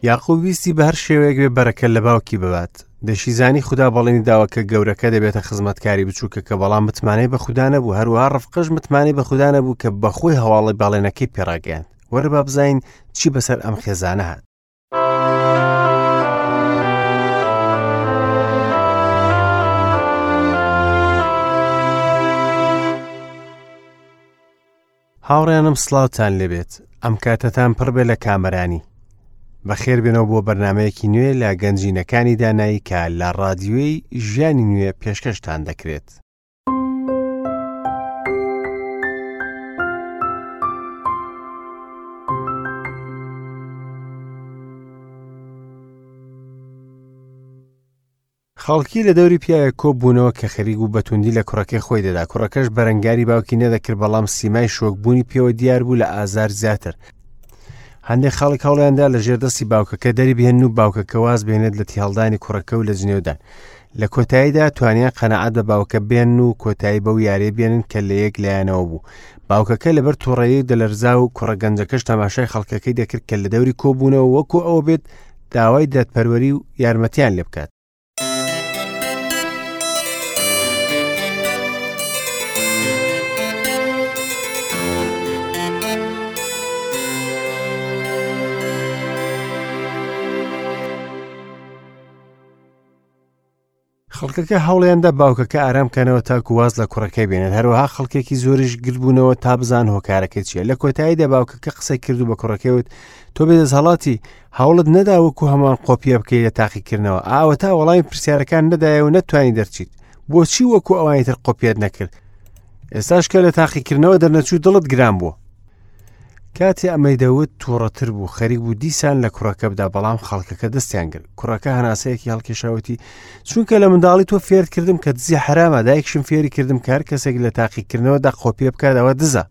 یاقوب ویستی بە هەر شێوەیەک بێ بەرەکە لە باوکی ببات. دەشیزانی خودا بەڵێنی داوە کە گەورەکە دەبێتە خزمەتکاری بچووکەکە، بەڵام متمانەی بە خودا نەبوو. هەروەها ڕفقەش متمانەی بە خودا نەبوو کە بەخۆی هەواڵی بەڵێنەکەی پێڕاگەیاند. وەرە با بزانین چی بەسەر ئەم خێزانە هات. هاوڕێیانم سڵاوتان لێبێت ئەم کاتەتان پڕ بێ لە کامەرانی بەخێر بێنەوە بۆ بەرنمەیەکی نوێ لە گەنجینەکانی دانایی کە لە ڕادیۆی ژیانی نوێ پێشکەشتان دەکرێت. خەڵکی لە دەوری پیاوێک کۆ بوونەوە کە خەریک بوو بە توندی لە کوڕەکەی خۆی دەدا کوڕەکەش بەرەنگاری باوکی نەدەکرد بەڵام سیمای شۆکبوونی پێوە دیار بوو لە ئازار زیاتر هەندێک خەڵک هەوڵیاندا لە ژێر دەستی باوکەکە دەری بهێن و باوکەکە واز بێنێت لە تیهڵدانی کوڕەکە و لە جنێودان لە کۆتاییدا توانیان قەنەعەت بە باوکە بێن و کۆتایی بەو یاریە بێنن کە لە یەک لایەنەوە بوو باوکەکە لەبەر تووڕەیی دەلەرزا و کوڕە گەنجەکەش تەماشای خەڵکەکەی دەکرد کە لە دەوری کۆبوونەوە وەکو ئەوە بێت داوای دادپەروەری و یارمەتیان لێ بکات. خەڵکەکە هەوڵیاندا باوکەکە ئارام کەنەوە تاکو واز لە کوڕەکەی بێنێت هەروەها خەڵکێکی زۆریش گربوونەوە تا بزان هۆکارەکەی چییە لە کۆتاییدا باوکەکە قسەی کرد و بە کوڕەکەی وت تۆ بێدەستهڵاتی هەوڵت نەدا وەکو هەمان قۆپیە بکەیت لە تاقیکردنەوە ئاوەتا وەڵامی پرسیارەکان نەدایە و نەتوانی دەرچیت بۆچی وەکو ئەوانی تر قۆپیەت نەکرد ئێستاش کە لە تاقیکردنەوە دەرنەچوو دڵت گران بووە کاتێ ئەمەی دەوت تووڕەتر بوو خەریک بوو دیسان لە کوڕەکە بدا بەڵام خەڵکەکە دەستیان گرت کوڕەکە هەناسەیەکی هەڵکێشاوتی چونکە لە منداڵی تۆ فێرت کردم کە دزی حرامە دایکشم فێری کردم کار کەسێک لە تاقیکردنەوە دا قۆپیە بکات ئەوە دزە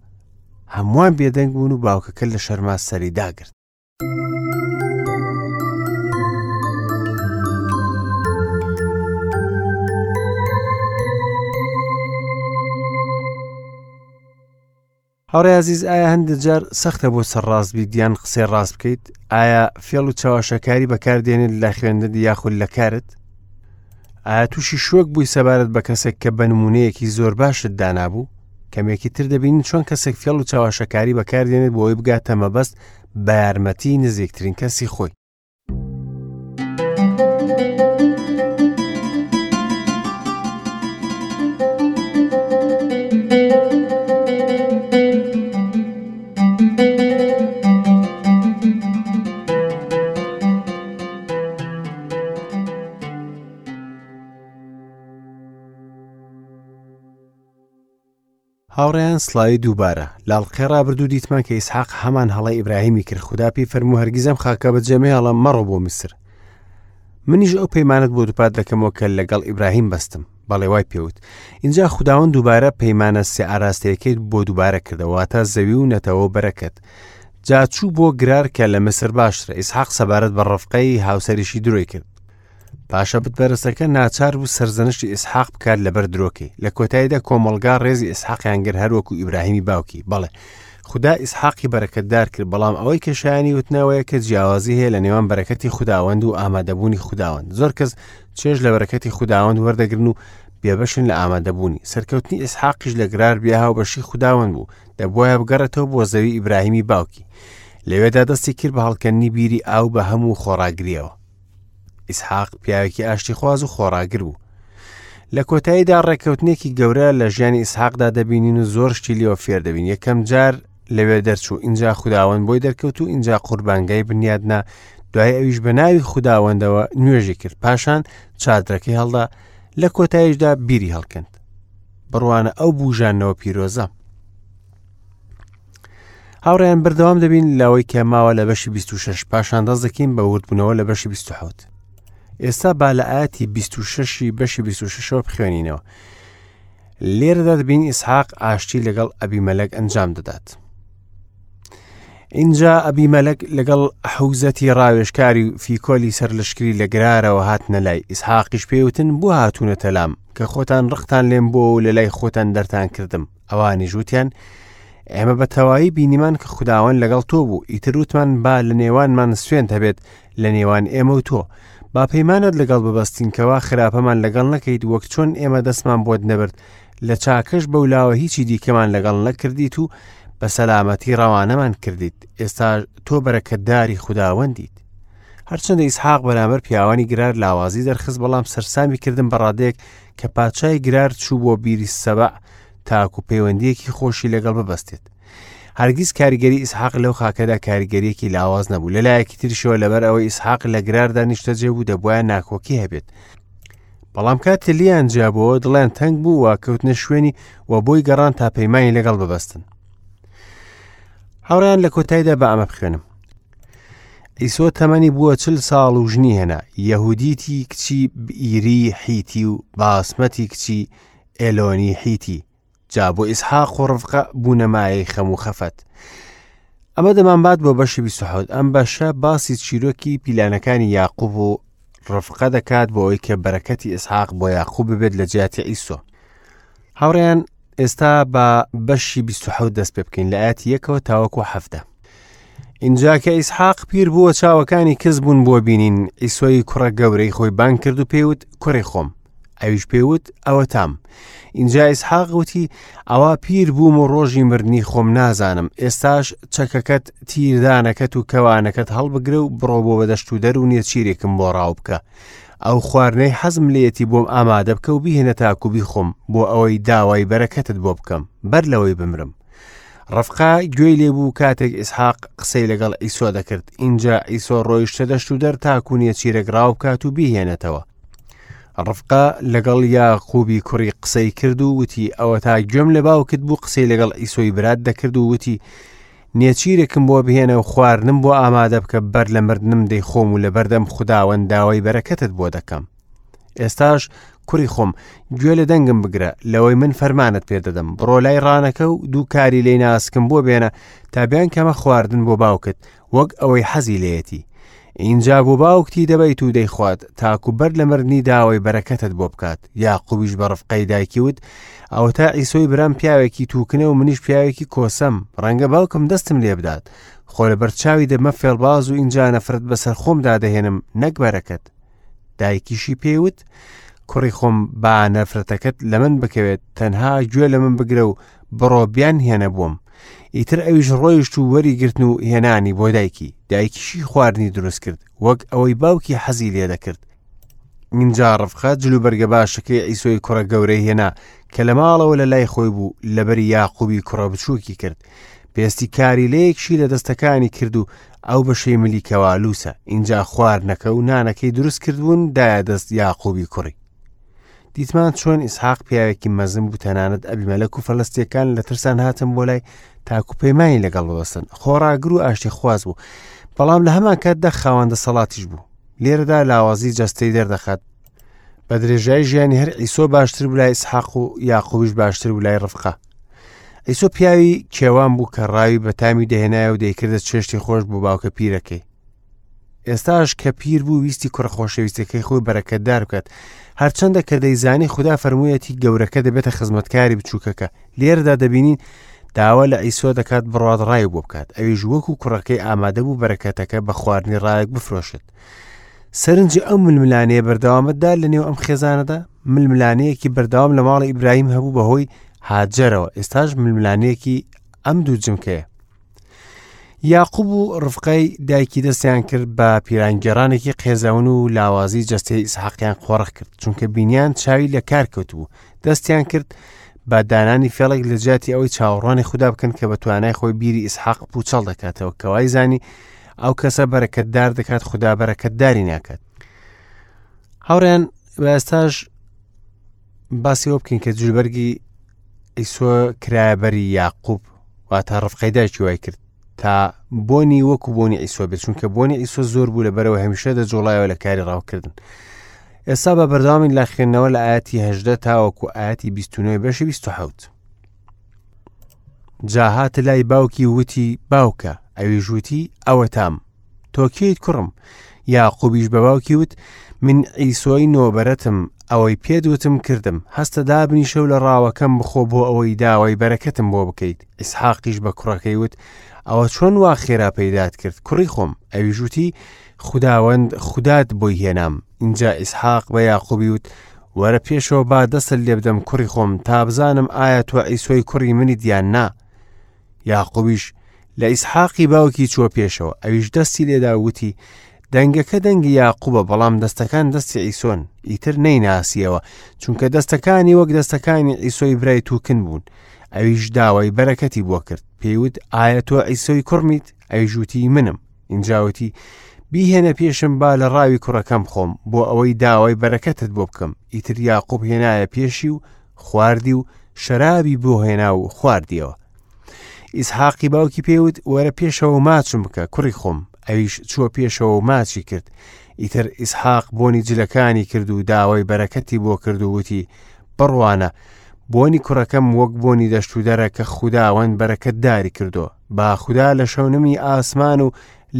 هەمووان بێدەنگ بوون و باوکەکە لە شەرما سەری داگرت هاوڕێ ئازیز ئایا هەندێک جار سەختە بۆ سەرڕاست بیت یان قسەی ڕاست بکەیت ئایا فێڵ و چاواشەکاری بەکاردێنێت لە خوێندن یاخود لە کارت ئایا تووشی شۆک بووی سەبارەت بە کەسێک کە بە نمونەیەکی زۆر باشت دانابوو کەمێکی تر دەبینین چۆن کەسێک فێڵ و چاواشەکاری بەکاردێنێت بۆ ئەوەی بگاتە مەبەست بە یارمەتی نزیکترین کەسی خۆی هاوڕێیان سڵاوی دووبارە لاڵقەی ڕابردوو دیتمان کە ئیسحاق هەمان هەڵەی ئیبراهیمی کرد خودا پێی فەرموو هەرگیز ئەم خاکە بەجێ مەهێڵە مەڕۆ بۆ میسر منیش ئەو پەیمانت بۆ دووپات دەکەمەوە کە لەگەڵ ئیبراهیم بەستم بەڵێ وای پێوت اینجا خوداوەند دووبارە پەیمانە سێ ئاراستەیەکەی بۆ دووبارە کردەوە واتە زەوی و نەتەوە و بەرەکەت جا چوو بۆ گرار کە لە میسر باشترە ئیسحاق سەبارەت بە ڕفقەی هاوسەریشی درۆی کرد پاشە بتپەرستەکە ناچار بوو سەرزەنشتی ئیسحاق بکات لەبەر درۆکەی لە کۆتاییدا کۆمەڵگا ڕێزی ئیسحاقیان گرت هەروەکو ئیبراهیمی باوکی بەڵێ خودا ئیسحاقی بەرەکەتدار کرد بەڵام ئەوەی کە شایانی وتنەوەیە کە جیاوازی هەیە لە نێوان بەرەکەتی خوداوەند و ئامادەبوونی خوداوەند زۆر کەس چێژ لە بەرەکەتی خوداوەند وەردەگرن و بێبەشن لە ئامادەبوونی سەرکەوتنی ئیسحاقیش لە گرار بیا هاوبەشی خوداوەند بوو دەبواە بگەڕێتەوە بۆ زەوی ئیبراهیمی باوکی لەوێدا دەستی کرد بە هەڵکەندنی بیری ئاو بە هەموو خۆڕاگریەوە ئیسحاق پیاوێکی ئاشتیخواز و خۆڕاگر بوو. لە کۆتاییدا ڕێککەوتنێکی گەورە لە ژیانی ئیسحاقدا دەبینین و زۆر شتی لێوە فێر دەبین یەکەم جار لەوێ دەرچوو ئینجا خوداوەند بۆی دەرکەوت و ئینجا قوربانگای بنیادنا دوای ئەویش بە ناوی خوداوەندەوە نوێژی کرد پاشان چادرەکەی هەڵدا لە کۆتاییشدا بیری هەڵکەند بڕوانە ئەو بوژانەوە پیرۆزە هاوڕێیان بەردەوام دەبین لەوەی کە ماوە لە بەشی 26 پاشان دەست دەکەین بە وردبوونەوە لە بەشی 27 ئێستا با لە ئاەتی 26 بەشی 26ەوە بخوێنینەوە لێرەدا دەبین ئیسحاق ئاشتی لەگەڵ ئەبیمەلەک ئەنجام دەدات اینجا ئەبیمەلەک لەگەڵ حوزەتی ڕاوێژکاری و فیکۆلی سەرلەشکری لە گرارەوە هاتنە لای ئیسحاقیش پێوتن بۆ هاتوونەتە لام کە خۆتان ڕقتان لێم بۆ و لە لای خۆتان دەرتان کردم ئەوانیش وتیان، ئێمە بە تەواوی بینیمان کە خوداوەند لەگەڵ تۆ بوو، ئیتر وتمان با لە نێوانمان سوێند هەبێت لە نێوان ئێمە و تۆ. با پەیمانت لەگەڵ ببەستین کەوا خراپەمان لەگەڵ نەکەیت وەک چۆن ئێمە دەستمان بۆت نەبرد، لە چاکەش بەولاوە هیچی دیکەمان لەگەڵ نەکردیت و بە سەلامەتی ڕەوانەمان کردیت. ئێستا تۆ بەرەکەتداری خوداوەندیت. هەرچەندە ئیسحاق بەرامبەر پیاوانی گرار لاوازی دەرخست، بەڵام سەرسامی کردن بە ڕادەیەک کە پادشای گرار چوو بۆ بیری سەبع تاکو پەیوەندیەکی خۆشی لەگەڵ ببەستێت. هەرگیز کاریگەری ئیسحاق لەو خاکەدا کاریگەریەکی لاواز نەبوو. لەلایەکی تریشەوە لەبەر ئەوەی ئیسحاق لە گراردا نیشتەجێ بوو دەبوایە ناکۆکی هەبێت. بەڵام کاتێ لیان جیابەوە دڵیان تەنگ بوو و کەوتنە شوێنی و بۆی گەڕان تا پەیمانی لەگەڵ ببەستن. هاوڕێیان لە کۆتاییدا بە ئەمە بخوێنم. عیسۆ تەمەنی بووە چل ساڵ و ژنی هێنا، یەهودیتی کچی بئیری حیتی و باسمەتی کچی ئێلۆنی حیتی، جا بۆ ئیسحاق و ڕفقە بوونە مایەی خەم و خەفەت. ئەمە دەمانبات بۆ بەشی 27 ئەم بەشە باسی چیرۆکی پیلانەکانی یاقوب و ڕفقە دەکات بۆ ئەوەی کە بەرەکەتی ئیسحاق بۆیاقوب ببێت لە جیاتی عیسۆ. هاوڕێیان ئێستا بە بەشی 27 دەست پێ بکەین لە ئاەتی یەکەوە تاوەکو حەفتە. اینجا کە ئیسحاق پیر بووە چاوەکانی کز بوون بۆ بینین ئیسۆی کوڕە گەورەی خۆی بانگ کرد و پێیوت کوڕی خۆم ئەویش پێیوت ئەوەتام ئینجا ئیسحاق وتی ئەوە پیر بووم و ڕۆژی مردنی خۆم نازانم ئێستاش چەکەکەت تیردانەکەت و کەوانەکەت هەڵبگرە و بڕۆ بۆ بەدەشت و دەر و نێچیرێکم بۆ ڕاو بکە ئەو خواردنەی حەزم لێیەتی بۆم ئامادە بکە و بیهێنە تاکو بیخۆم بۆ ئەوەی داوای بەرەکەتت بۆ بکەم بەر لەوەی بمرم. ڕفقا گوێی لێبوو کاتێک ئیسحاق قسەی لەگەڵ ئیسۆ دەکرد ئینجا ئیسۆ ڕۆیشتە دەشت و دەر تاکو نێچیرێک ڕاو بکات و بیهێنێتەوە. ڕفقا لەگەڵ یاقوبی کوڕی قسەی کرد و وتی ئەوەتا گوێم لە باوکت بوو قسەی لەگەڵ ئیسۆی برات دەکرد و وتی نێچیرێکم بۆ بهێنە و خواردنم بۆ ئامادە بکە بەر لە مردنم دەیخۆم و لەبەردەم خوداوەند داوای بەرەکەتت بۆ دەکەم. ئێستاش کوڕی خۆم گوێ لە دەنگم بگرە لەوەی من فەرمانت پێ دەدەم بڕۆ لای ڕانەکە و دوو کاری لی ناسکم بۆ بێنە تا بیان کەمە خواردن بۆ باوکت وەک ئەوەی حەزی لێیەتی ئینجا بۆ باوکتی دەبەیت و دەیخوات تاکو بەر لە مردنی داوای بەرەکەتت بۆ بکات یاقوبیش بە ڕفقەی دایکی وت ئەوەتا عیسۆی برام پیاوێکی تووکنە و منیش پیاوێکی کۆسەم ڕەنگە باوکم دەستم لێ بدات خۆ لەبەر چاوی دەبمە فێڵباز و ئینجا نەفرەت بەسەر خۆمدا دەهێنم نەک بەرەکەت دایکیشی پێی وت کوڕی خۆم با نەفرەتەکەت لە من بکەوێت تەنها گوێ لە من بگرە و بڕۆ بیان هێنە بۆم ئیتر ئەویش ڕۆیشت و وەری گرتن و هێنانی بۆ دایکی دایکیشی خواردنی دروست کرد وەک ئەوەی باوکی حەزی لێ دەکرد اینجا ڕفقە جلوبەرگە باشەکەی عیسۆی کوڕە گەورەی هێنا کە لە ماڵەوە لە لای خۆی بوو لەبەری یاقوبی کوڕە بچووکی کرد پێستی کاریلەیەکشی لە دەستەکانی کرد و ئەو بەشەی ملی کەوا لووسە ئینجا خواردنەکە و نانەکەی دروست کردبوون دایە دەست یاقوبی کوڕی دیتمان چۆن ئیسحاق پیاوێکی مەزن بوو تەنانەت ئەبیمەلەک و فەلەستیەکان لە ترسان هاتن بۆ لای تاکو پەیمانی لەگەڵ ببەستن خۆڕاگر و ئاشتی خواز بوو بەڵام لە هەمان کاتدا خاوەن دەسەڵاتیش بوو لێرەدا لاوازی جەستەی دەردەخات بە درێژای ژیانی هەر ئیسۆ باشتر بوو لای ئیسحاق و یاقوبیش باشتر بوو لای ڕفقە ئیسۆ پیاوی کێوان بوو کە ڕاوی بەتامی دەهێنایە و دەیکردە چێشتی خۆش بۆ باوکە پیرەکەی ئێستاش کە پیر بوو ویستی کوڕە خۆشەویستەکەی خۆی بەرەکەتدار بکات هەرچەندە کە دەیزانی خودا فەرموویەتی گەورەکە دەبێتە خزمەتکاری بچووکەکە لێرەدا دەبینین داوا لە ئیسۆ دەکات بڕات ڕای بۆ بکات ئەویش وەکو کوڕەکەی ئامادە بوو بەرەکەتەکە بە خواردنی ڕایەک بفرۆشێت سەرنجی ئەو ململانەیە بەردەوامەتدا لە نێو ئەم خێزانەدا ململانەیەکی بەردەوام لە ماڵی ئیبراهیم هەبوو بەهۆی هاجەرەوە ئێستاش ململانەیەکی ئەم دوو جمکەیە یاقوب و ڕفقەی دایکی دەستیان کرد بە پیرانگێڕانێکی قێزەون و لاوازی جەستەی ئیسحاقیان قۆڕخ کرد چونکە بینیان چاوی لە کار کەوتبوو دەستیان کرد بە دانانی فێڵێک لە جیاتی ئەوەی چاوەڕوانی خودا بکەن کە بە توانای خۆی بیری ئیسحاق پوچەڵ دەکاتەوە کەوای زانی ئەو کەسە بەرەکەتدار دەکات خودا بەرەکەتداری ناکات هاوڕێن بە ئێستاش باسی ئەوە بکەین کە جلوبەرگی ئیسۆ کرایە بەری یاقوب واتە ڕفقەی دایکی وای کرد تا بۆنی وەکو بۆنی ئیسۆ بێت چونکە بۆنی ئیسۆ زۆر بوو لە بەرەوە هەمیشە دەجۆڵایەوە لە کاری ڕاوکردن ئێستا بە بەردەوامین لە خوێندنەوە لە ئاەتی هەژدە تاوەکو ئاەتی 29 بەشی 27 جا هاتە لای باوکی وتی باوکە ئەویش وتی ئەوەتام تۆ کێیت کوڕم؟ یاقوبیش بە باوکی وت، من عیسۆی نۆبەرەتم، ئەوەی پێت وتم کردم، هەستە دابنیشە و لە ڕاوەکەم بخۆ بۆ ئەوەی داوای بەرەکەتم بۆ بکەیت. ئیسحاقیش بە کوڕەکەی وت، ئەوە چۆن وا خێرا پەیدات کرد، کوڕی خۆم؟ ئەویش وتی، خوداوەند خودات بۆی هێنام. ئینجا ئیسحاق بە یاقوبی وت، وەرە پێشەوە با دەستت لێ بدەم کوڕی خۆم، تا بزانم ئایا تۆ عیسۆی کوڕی منیت یان نا. یاقوبیش لە ئیسحاقی باوکی چووە پێشەوە، ئەویش دەستی لێدا و وتی، دەنگەکە دەنگی یاقوبە، بەڵام دەستەکان دەستی عیسۆن. ئیتر نەیناسیەوە، چونکە دەستەکانی وەک دەستەکانی عیسۆی برای تووکن بوون. ئەویش داوای بەرەکەتی بۆ کرد، پێی وت، ئایا تۆ عیسۆی کوڕمیت؟ ئەویش وتی، منم. ئینجا وتی، بیهێنە پێشم با لە ڕاوی کوڕەکەم بخۆم، بۆ ئەوەی داوای بەرەکەتت بۆ بکەم. ئیتر یاقوب هێنایە پێشی و خواردی و شەرابی بۆ هێنا و خواردیەوە. ئیسحاقی باوکی پێی وت، وەرە پێشەوە و ماچم بکە، کوڕی خۆم. ئەویش چووە پێشەوە و ماچی کرد. ئیتر ئیسحاق بۆنی جلەکانی کرد و داوای بەرەکەتی بۆ کرد و وتی، بڕوانە، بۆنی کوڕەکەم وەک بۆنی دەشتودەرە کە خوداوەند بەرەکەتداری کردووە. با خودا لە شەونمی ئاسمان و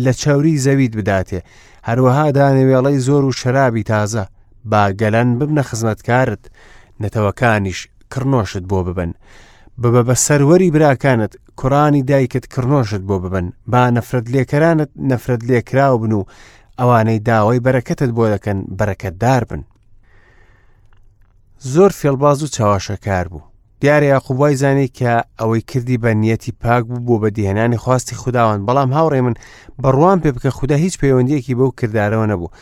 لە چەوری زەویت بداتێ، هەروەها دانەوێڵەی زۆر و شەرابی تازە. با گەلان ببنە خزمەتکارت، نەتەوەکانیش کڕنۆشت بۆ ببەن. ببە بە سەروەری براکانت، کوڕانی دایکت کڕنۆشت بۆ ببەن. با نەفرەت لێکەرانت نەفرەت لێکراو بن و ئەوانەی داوای بەرەکەتت بۆ دەکەن بەرەکەتدار بن. زۆر فێڵباز و چەواشەکار بوو. دیارە یاقوب وای زانی کە ئەوەی کردی بە نیەتی پاک بوو بۆ بەدیهێنانی خواستی خوداوەند، بەڵام هاوڕێ من بڕوام پێ بکە خودا هیچ پەیوەندیەکی بەو کردارەوە نەبوو.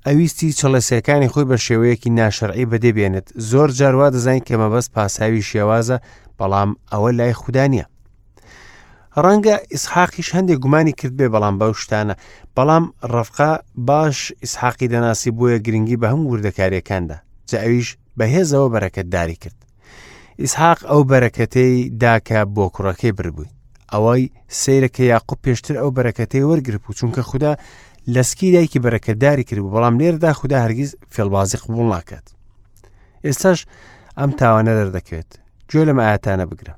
ئەویستی چڵێسەکانی خۆی بە شێوەیەکی ناشەرعی بەدێ بێنێت. زۆر جار وا دەزانین کە مەبەست پاساوی شێوازە، بەڵام ئەوە لای خودا نییە. ڕەنگە ئیسحاقیش هەندێک گومانی کرد بێ، بەڵام بەو شتانە، بەڵام ڕەفقا باش ئیسحاقی دەناسی، بۆیە گرنگی بە هەموو وردەکاریەکاندا، جا ئەویش بەهێزەوە بەرەکەتداری کرد. ئیسحاق ئەو بەرەکەتەی دا کە بۆ کوڕەکەی بردبووی. ئەوەی سەیرە کە یاقوب پێشتر ئەو بەرەکەتەی وەرگرتبوو، چونکە خودا لە سکی دایکی بەرەکەتداری کردبوو، بەڵام لێرەدا خودا هەرگیز فێڵبازی قبوڵ ناکات. ئێستاش ئەم تاوانە دەردەکەوێت. گوێ لەم ئاەتانە بگرە.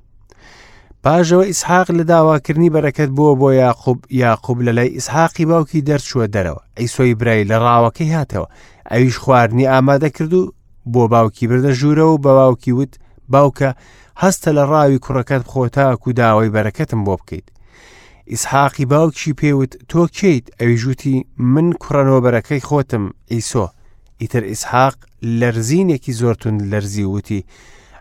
پاژەوە ئیسحاق لە داواکردنی بەرەکەت بووە بۆ یاقوب، یاقوب لە لای ئیسحاقی باوکی دەرچووە دەرەوە. عیسۆی برای لە ڕاوەکەی هاتەوە، ئەویش خواردنی ئامادە کرد و بۆ باوکی بردە ژوورەوە و بە باوکی وت، باوکە، هەستە لە ڕاوی کوڕەکەت بخۆ تاکو داوای بەرەکەتم بۆ بکەیت. ئیسحاقی باوکیشی پێی وت، تۆ کێیت؟ ئەویش وتی، من کوڕە نۆبەرەکەی خۆتم، عیسۆ. ئیتر ئیسحاق لەرزینێکی زۆر توند لەرزی و وتی،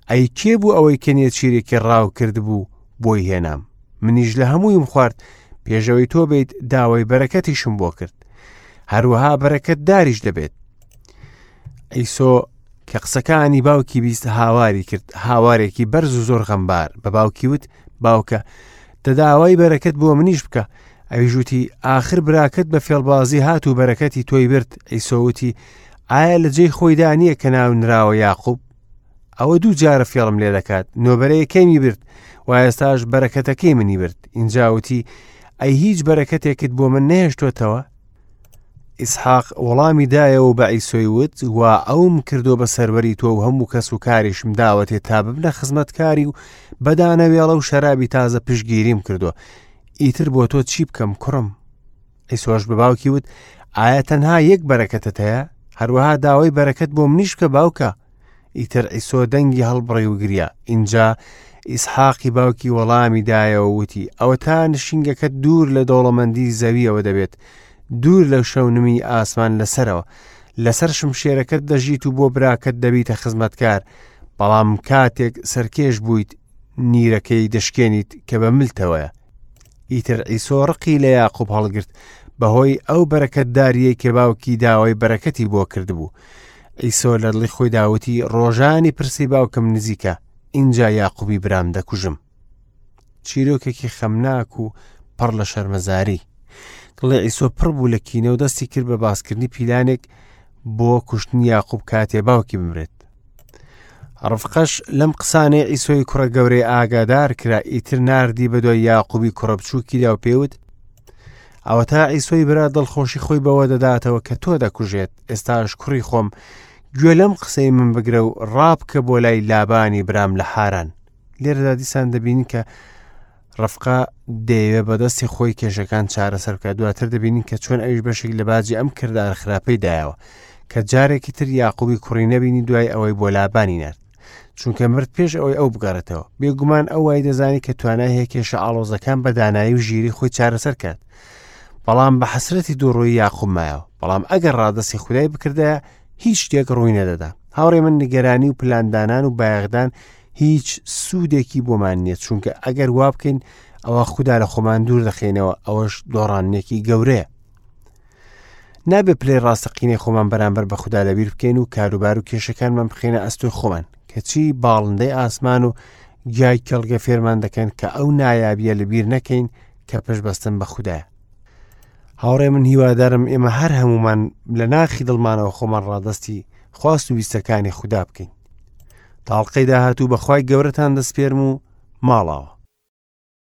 ئەی کێ بوو ئەوەی کە نێچیرێکی ڕاو کردبوو بۆی هێنام؟ منیش لە هەموویم خوارد، پێشەوەی تۆ بێیت داوای بەرەکەتیشم بۆ کرد. هەروەها بەرەکەتداریش دەبێت. عیسۆ کە قسەکانی باوکی بیست هاواری کرد، هاوارێکی بەرز و زۆر غەمبار. بە باوکی وت، باوکە، دەداوای بەرەکەت بۆ منیش بکە. ئەویش وتی، ئاخر براکەت بە فێڵبازی هات و بەرەکەتی تۆی برد. عیسۆ وتی، ئایا لە جێی خۆیدا نییە کە ناو نراوە یاقوب؟ ئەوە دوو جارە فێڵم لێ دەکات، نۆبەرەیەکەیمی برد و ئێستاش بەرەکەتەکەی منی برد. ئینجا وتی، ئەی هیچ بەرەکەتێکت بۆ من نەهێشتۆتەوە؟ ئیسحاق وەڵامی دایەوە و بە عیسۆی وت، وا ئەوم کردووە بە سەروەری تۆ و هەموو کەس و کاریشم داوەتێ تا ببنە خزمەتکاری و بە دانەوێڵە و شەرابی تازە پشتگیریم کردووە. ئیتر بۆ تۆ چی بکەم کوڕم؟ عیسۆش بە باوکی وت، ئایا تەنها یەک بەرەکەتت هەیە؟ هەروەها داوای بەرەکەت بۆ منیش بکە باوکە. ئیتر عیسۆ دەنگی هەڵبڕی و گریا. ئینجا ئیسحاقی باوکی وەڵامی دایەوە وتی، ئەوەتا نشینگەکەت دوور لە دەوڵەمەندی زەویەوە دەبێت، دوور لە شەونمی ئاسمان لەسەرەوە. لەسەر شمشێرەکەت دەژیت و بۆ براکەت دەبیتە خزمەتکار، بەڵام کاتێک سەرکێش بوویت نیرەکەی دەشکێنیت کە بە ملتەوەیە. ئیتر عیسۆ ڕقی لە یاقوب هەڵگرت بەهۆی ئەو بەرەکەتداریەی کە باوکی داوای بەرەکەتی بۆ کردبوو. عیسۆ لە دڵی خۆیدا وتی، ڕۆژانی پرسی باوکم نزیکە، ئینجا یاقوبی برام دەکوژم. چیرۆکێکی خەمناک و پڕ لە شەرمەزاری. دڵی عیسۆ پڕ بوو لە کینە و دەستی کرد بە باسکردنی پیلانێک بۆ کوشتنی یاقوب کاتێ باوکی بمرێت. ڕفقەش لەم قسانەی عیسۆی کوڕە گەورەی ئاگادار کرا، ئیتر ناردی بە دوای یاقوبی کوڕە بچووکیدا و پێوت، ئەوەتا عیسۆی برا دڵخۆشی خۆی بەوە دەداتەوە کە تۆ دەکوژێت، ئێستاش کوڕی خۆم گوێ لەم قسەی من بگرە و ڕابکە بۆ لای لابانی برام لە حاران. لێرەدا دیسان دەبینین کە ڕفقە دەیەوێ بەدەستی خۆی کێشەکان چارەسەر بکات دواتر دەبینین کە چۆن ئەویش بەشێک لە باجی ئەم کردار خراپەی دایەوە. کە جارێکی تر یاقوبی کوڕی نەبینی دوای ئەوەی بۆ لابانی نارد. چونکە مرد پێش ئەوەی ئەو بگەڕێتەوە. بێگومان ئەو وای دەزانی کە توانای هەیە کێشە ئاڵۆزەکان بە دانایی و ژیری خۆی چارەسەر کات. بەڵام بە حەسرەتی دووڕووی یاقوب مایەوە. بەڵام ئەگەر ڕادەستی خودای بکردایە هیچ شتێک ڕووی نەدەدا. هاوڕێ من نیگەرانی و پلاندانان و بایەخدان هیچ سوودێکی بۆمان نییە چونکە ئەگەر وا بکەین ئەوە خودا لە خۆمان دوور دەخەینەوە ئەوەش دۆڕانێکی گەورەیە. نابێ پلەی ڕاستەقینەی خۆمان بەرامبەر بە خودا لەبیر بکەین و کاروبار و کێشەکانمان بخەینە ئەستۆی خۆمان کەچی باڵندەی ئاسمان و گیای کێڵگە فێرمان دەکەن کە ئەو نایابیە لەبیر نەکەین کە پشت بەستن بە خودایە هاوڕێ من هیوادارم ئێمە هەر هەمومان لە ناخی دڵمانەوە خۆمان ڕادستی خواست و ویستەکانی خودا بکەین تاڵقەی داهاتوو بەخوای گەورەتان دەسپێرم و ماڵاوە.